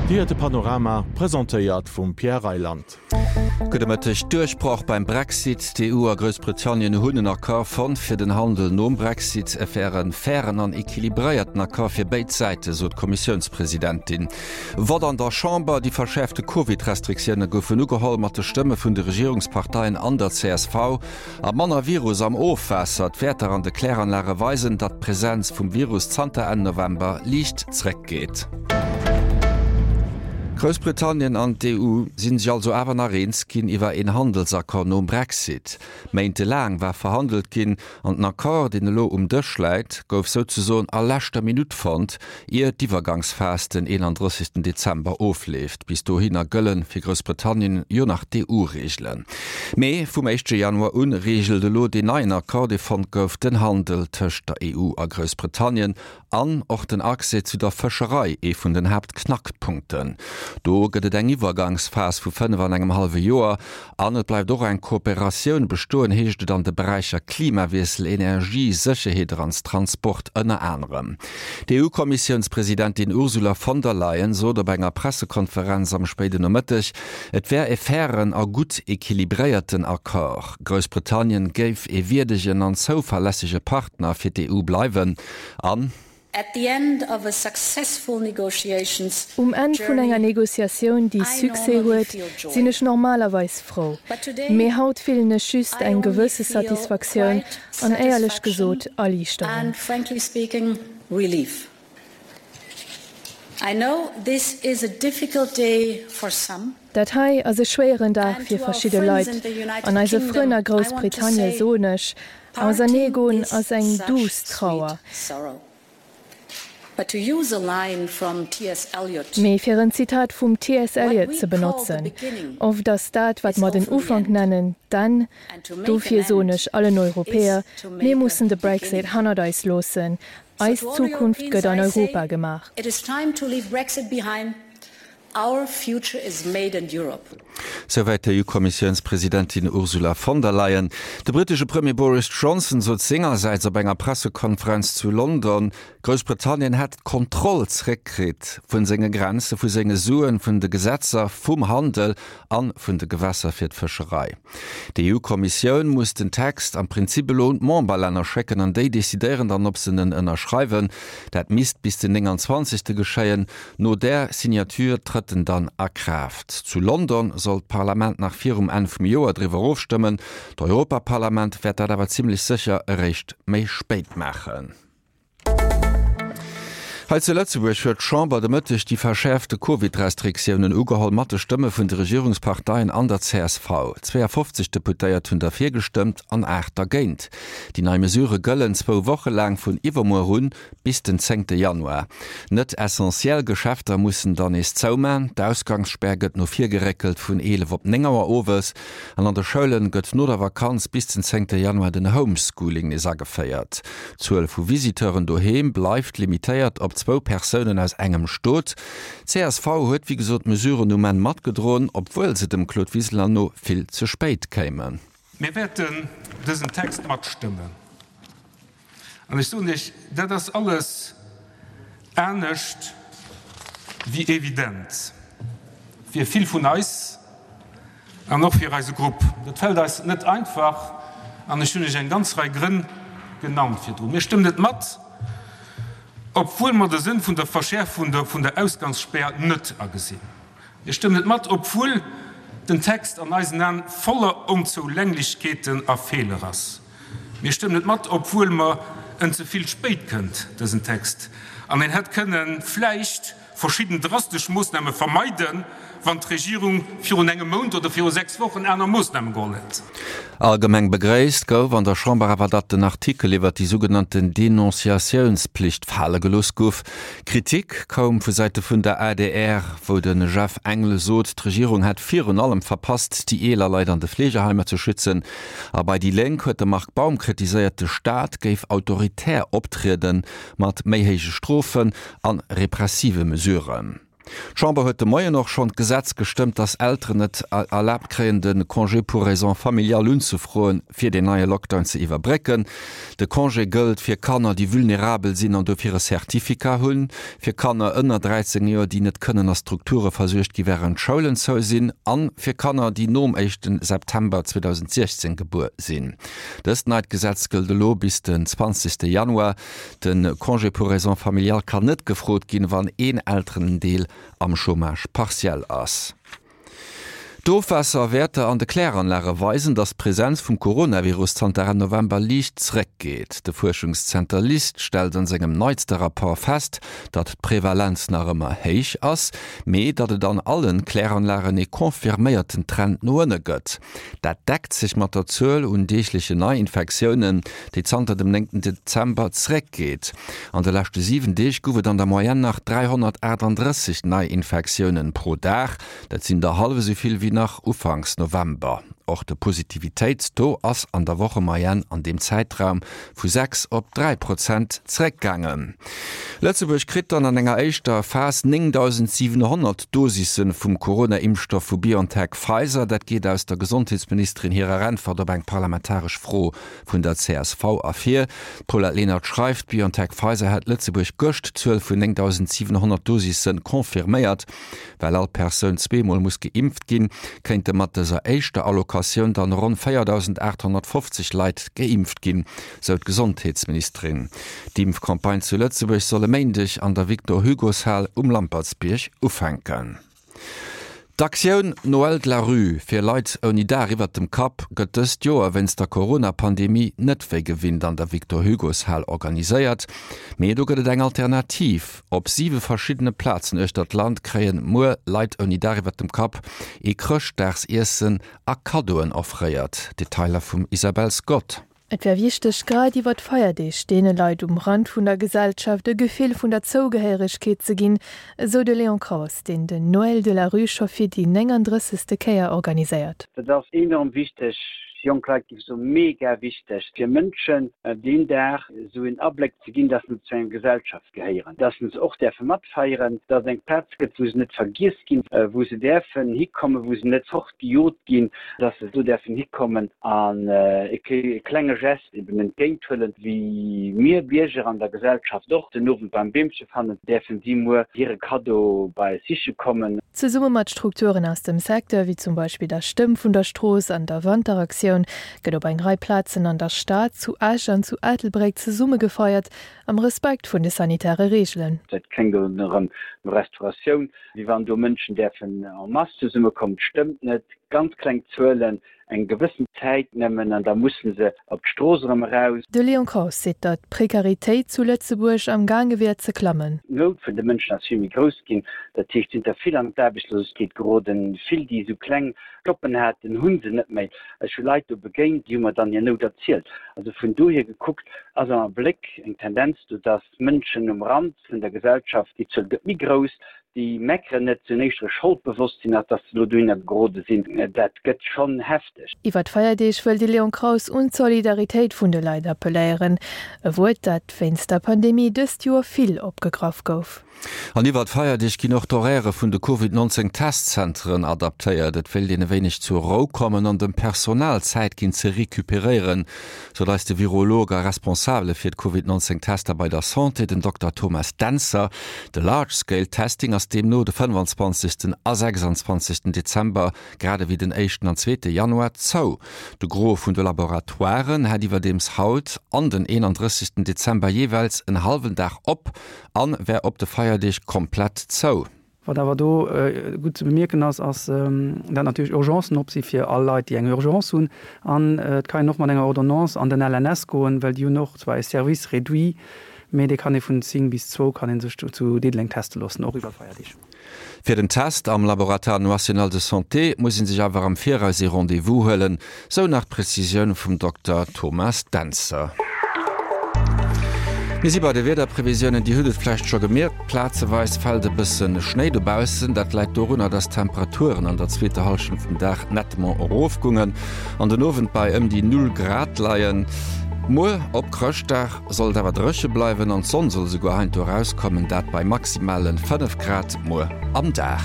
Dir héiert de Panorama, presentéiert vum Pierre Reyland. Gudde Mëtteg. Duerchbroch beim Brexit, D'EU a Groussbritannien hunn en Accord fonnt fir den Handel nom Brexit. Et wär e fairen an equilibréierten Accord fir béid Säite, sot d'Kommissiounspresidentin. Vott an der Chamber, Déi verschäerfte Covid-Restriktioune goufen ugeholl mat de Stëmme vun de Regierungsparteien an der csv. A manner Virus am Ofwaasser, D'Wäerter an de Kläranlage weisen, datt d'Presenz vum Virus zanter Enn November liicht zréckgeet. Groussbritannien an d'EU si sech also awer nach eens ginn iwwer een Handelsaccord nom Brexit. Méintelaang war verhandelt ginn an den Accord, deen elo um Dësch läit, gouf souzesoen a leschter Minutt fonnt, ier d'Iwwergangsphas den 31 Dezember ofleeft. Bis dohinner gëlle fir Groussbritannien jo nach d'EU-Reegelen. Mee vum éischte Januar un reegelt elo deen neien Accord, dee fonnt gouf, den Handel tëscht der EU a Groussbritannien an och den Accès zu der Fëscherei, ee vun den Haaptknackpunkten. Do gëtt et eng Iwwergangsphas vu 5 an engem hallwe Joer An et bleift och eng Kooperatioun bestoen, heescht et an de Beräicher Klimawiessel, Energie, Sécherheet an Transport ënner anerem. D'EU-Kommissiounspresidentin Ursula von der Leyen sot op enger Pressekonferenz am spéiden Nomëtteg, et wär e fairen a gutt equilibréierten Accord. Groussbritannien géif e wierdegen an zouverlässege Partner fir d'EU bleiwen an, Um Enn vun enger Negociatioun, déi Succès huet, sinn ech normalerweis frou. Mee haut fillen ech just eng gewësse Satisfaktioun an éierlech gesot Erliichterung. Dat hei ass e schwéieren Dag fir verschidde Leit. An eise Frënn a Groussbritannie soen ech, Auserneegoen ass eng duuss Trauer. Mee fir en Zitat vum TS. Eliot ze benotzen, Oft ass dat, wat mer den Ufank nennen, d'Enn. Dofir soen ech allen Europäer, Mir mussen de Brexit hannert eis loossen. Eis Zukunft gëtt an Europa gemaach. Our future is made in Europe. Souwäit d'EU-Kommissiounspresidentin Ursula von der Leyen. De brittesche Premier Boris Johnson sot sengersäits op enger Pressekonferenz zu London, Groussbritannien hätt d'Kontroll zeréckkritt vu senge Grenze, vu senge Suen, vun de Gesetzer, vum Handel a vun de Gewässer fir d'Fëscherei. D'EU-Kommissioun muss den Text am Prinzip elo un d'Memberlänner schécken an déi decidéieren dann, ob se en ënnerschreiwen. Dat misst bis den 29. geschéien. No där Signature trëtt en dann a Kraaft. Zu London soll d'Parlament nach virum Enn vum Joer driwwer ofstëmmen. D'Europaparlament wäert dat awer zimmlech sécher eréischt méi spéit maachen. Hei zu Lëtzebuerg huet d'Chamber de Mëtteg déi verschäerfte Covid-Restriktiounen ugeholl, mat de Stëmme vun de Regierungsparteien an der csv. 52 Deputéiert hunn derfir gestëmmt an 8 dergéint. Déi nei Mesurë gëllen zwou Woche laang vun iwwermuer un Bis den zéngte Januar. Net essentiell Geschäfter mussen dann nees zouman. D'Ausgangsspär gëtt no vir geréckelt vun 11 op 9 Auer owes. An an de Schoulen gëtt no der Vakanz bis den zéngte Januar den Homeschooling nees ageféiert. D'Zuel vu Visiteuren doheem bleift limitéiert op zwou Persounen aus engem Stot. Csv huet wéi gesot d'Mesuren um Enn matgedroen, obwuel se dem Claude Wiseler no vill ze spéit kéimen. Mir wäerten dësen Text matstëmmen. An ech soen Iech, dat ass alles anescht wéi evident fir vill vun eis an och fir eise Grupp. Dat fält eis net einfach an ech hunn Iech eng ganz Rei Grënn genannt virdrun. Mir stëmmen et mat, obwuel mer de Sënn vun der Verschäerfung vun der Ausgangsspär net agesinn. Mir stëmmen et mat, obwuel den Text an eisen Aen voller Onzoulänglechkeeten a Feeler ass. Mir stëmmen et mat, obwuel mer en ze vill spéit kënnt, dësen Text, an een hätt kënnen vläicht verschidden drastesch Moosname vermeiden, wann d'Regierung virun engem Mount oder viru 6 Wochen aner Moosname geholl hätt. Allgemeng begréisst gouf an der Chamber awer, datt den Artikel iwwert déi sougenannten Denonciatiounspflicht fale gelooss gouf. Kritik koum vu Säite vun der adr, wou de Jeff Engel sot, d'Regierung hätt virun allem verpasst, déi eeler Leit an de Fleegeheimer ze schützen. A bei déi Lénk huet de Marc Baum kritiséiert, de Staat géif autoritär optriede mat méi héije Strofen a repressive Mesuren. D'Chamber huet de Moien och schonn d'Gesetz gestëmmt, datt Elteren et erlaabt kréien, de Congé pour raisons familiales unzefroen, fir deen neie Lockdown ze iwwerbrécken. De Congé gëllt fir Kanner, déi vulnerabel sinn an dofir e Certificat hunn, fir Kanner ënner 13 Joer, déi net kënnen a Strukture versuergt gi wärend d'Schoulen zou sinn, a fir Kanner, déi nom éischte September 2016 gebuer sinn. Dëst neit Gesetz gëllt elo bis den 20 Januar. De Congé pour raisons familiales kann net gefrot ginn, wann een Elterendeel am Chômage partiel ass. D'Ofwaasserwäerter an de Kläranlage weisen, datt d'Presenz vum Coronavirus zanter Enn November liicht zeréckgeet. De Fuerschungszenter LIST stellt an sengem neitste Rapport fest, datt d'Prevalenz nach ëmmer héich ass, mee datt et an allen Kläranlagen ee confirméierten Trend no ënne gëtt. Dat deckt sech mat der Zuel un deeglechen Neiinfektiounen, déi zanter dem 9 Dezember zeréckgeet. An de leschte 7 Deeg gouf et an der Moyenne nach 338 Neiinfektiounen pro Dag. Dat sinn der hallef esou vill wéi nach ufanks November. Och de Positivitéitstaux ass an der Wochemoyenne an deem Zäitraum vu 6 op 3 Prozent zeréckgaangen. Lëtzebuerg kritt dann an enger éischter Phas 9.700 Dosisse vum Corona-Impfstoff vu BioNTech-Pfizer. Dat geet aus der Gesondheetsministerin hirer Äntwert op eng parlamentaresch Fro vun der csv ervir. D'Paulette Lenert schreift, BioNTech-Pfizer hätt Lëtzebuerg gëscht d'Zuel vun 9.700 Dosisse confirméiert. Well all Persoun zweemol muss geimpft ginn, kéinte mat dëser éischter Allocatioun dann ronn 4.850 Leit geimpft ginn, sou d'Gesondheetsministerin. D'Impfcampagne zu Lëtzebuerg soll e Méindeg an der Victor-Hugo-Shal um Lampertsbierg ufänken. D'Aktioun Noël de la rue fir Leit ouni Daach iwwert dem Kapp gëtt dëst Joer wéinst der Corona-Pandemie net wéi gewinnt an der Victor-Hugo-Shal organiséiert. Mee do gëtt et eng Alternativ. Op siwe verschiddene Plazen uechter d'Land kréien muer Leit ouni Daach iwwert dem Kapp ee Chrëschtdagsiessen a Kaddoen offréiert. Detailer vum Isabel Scott. Et wär wichteg, grad iwwer d'Feierdeeg deene Leit um Rand vun der Gesellschaft e Gefill vun der Zougehéieregkeet ze ginn, esou de Léon Kraus, deen den Noël de la rue scho fir déi 39. Kéier organiséiert. Dat ass enorm wichteg fir jonk Leit, géif ech soen, mega wichteg fir Mënschen deen Dag esou en Abléck ze ginn, dass se zu enger Gesellschaft gehéieren, dass se och däerfe matfeieren, dass et eng Plaz gëtt, wou se net vergiess ginn, wou se däerfen hikommen, wou se net fortgejot ginn, dass se do däerfen hikommen an e klenge Gest eben entgéinthuelen, wéi mir Bierger an der Gesellschaft och den Owend beim Beemche fannen, däerfen si muer hire Kaddo bei eis siche kommen. Zesumme mat Strukturen aus dem Secteur, wéi zum Beispill der Stëmm vun der Strooss an der Wanteraktioun, gëtt op eng Rei Plazen an der Stad, zu Esch an zu Ettelbréck zesumme gefeiert, Am Respekt vun de sanitäre Reegelen. Dat kléngt elo erëm no Restauratioun, wéi wann do Mënschen däerfen en masse zesummekommen. Dat stëmmt net. Ganz kleng Zuelen, eng gewëssen Zäit nëmmen, an da musse se op d'Strooss erëm eraus. De Léon Kraus seet, datt d'Prekaritéit zu Lëtzebuerg am gaange wier ze klammen. D'Nout vun de Mënschen ass vill méi grouss ginn. Dat heescht, et sinn der vill an d'Aarbechtslosegkeet geroden, vill déi esou kleng Joppen haten, hu se net méi. Ech hu Leit do begéint, déi hu mer dann hir Nout erzielt. Also vun dohier gekuckt ass am Abléck eng Tendenz do, dass Mënschen um Rand vun der Gesellschaft, déi Zuel gëtt méi grouss, déi meckeren net, se hunn éischter e Scholdbewosstsinn, als dass se elo dohinner gerode sinn. Dat gëtt schonn hefteg. Iwwer d'Feierdeeg wëll de Léon Kraus un d'Solidaritéit vun de Leit appelléieren. E Wuert, dat wéinst der Pandemie dëst Joer vill opgegraff gouf. An iwwer d'Feierdeeg ginn och d'Horairë vun de Covid 19 Testzenteren adaptéiert. Et wéilt een e wéineg zur Rou kommen an dem Personal Zäit ginn ze recuperéieren, sot eis de Virolog a Responsabele fir d'Covid 19 Tester bei der Santé, den Dokter Thomas Dentzer. De Large Scale Testing ass deemno de 25. A 26. Dezember grad ewéi den éischten an zweete Januar zou. De Gros vun de Laboratoiren hätt iwwerdeems haut an den 31. Dezember jeeweils en hallwen Dag op An wär op de Feierdeeg komplett zou. Wat awer do gutt ze bemierken ass, ass dat natierlech Urgencen op si fir all Leit, déi eng Urgence hunn. An et kann een och mat enger Ordonnance an den LNS goen, well déi hunn och zwar e Service réduit, mee dee kann ee vun 10 bis zwou kann ee sech zu Diddeleng teste loossen, och iwwer Feierdeeg. Fir den Test am Laboratoire National de Santé muss ee sech awer am Viraus ee Rendez-vous huelen, sou nach d'Prezisioun vum Dokter Thomas Dentzer. Mir si bei de Wiederprevisiounen. Dir hutt et vläicht scho gemierkt, plazeweis fält e bësse Schnéi dobaussen. Dat läit dorunner, dass d'Temperaturen an der zweeter Hallschent vum Dag nettement erofgoungen an den Owend bei ëm déi Null Grad leien. Muer op Chrëschtdag soll et awer dréche bleiwen an d'Sonn soll esouguer heiansdo erauskommen, dat bei maximale 5 Grad muer am Dag.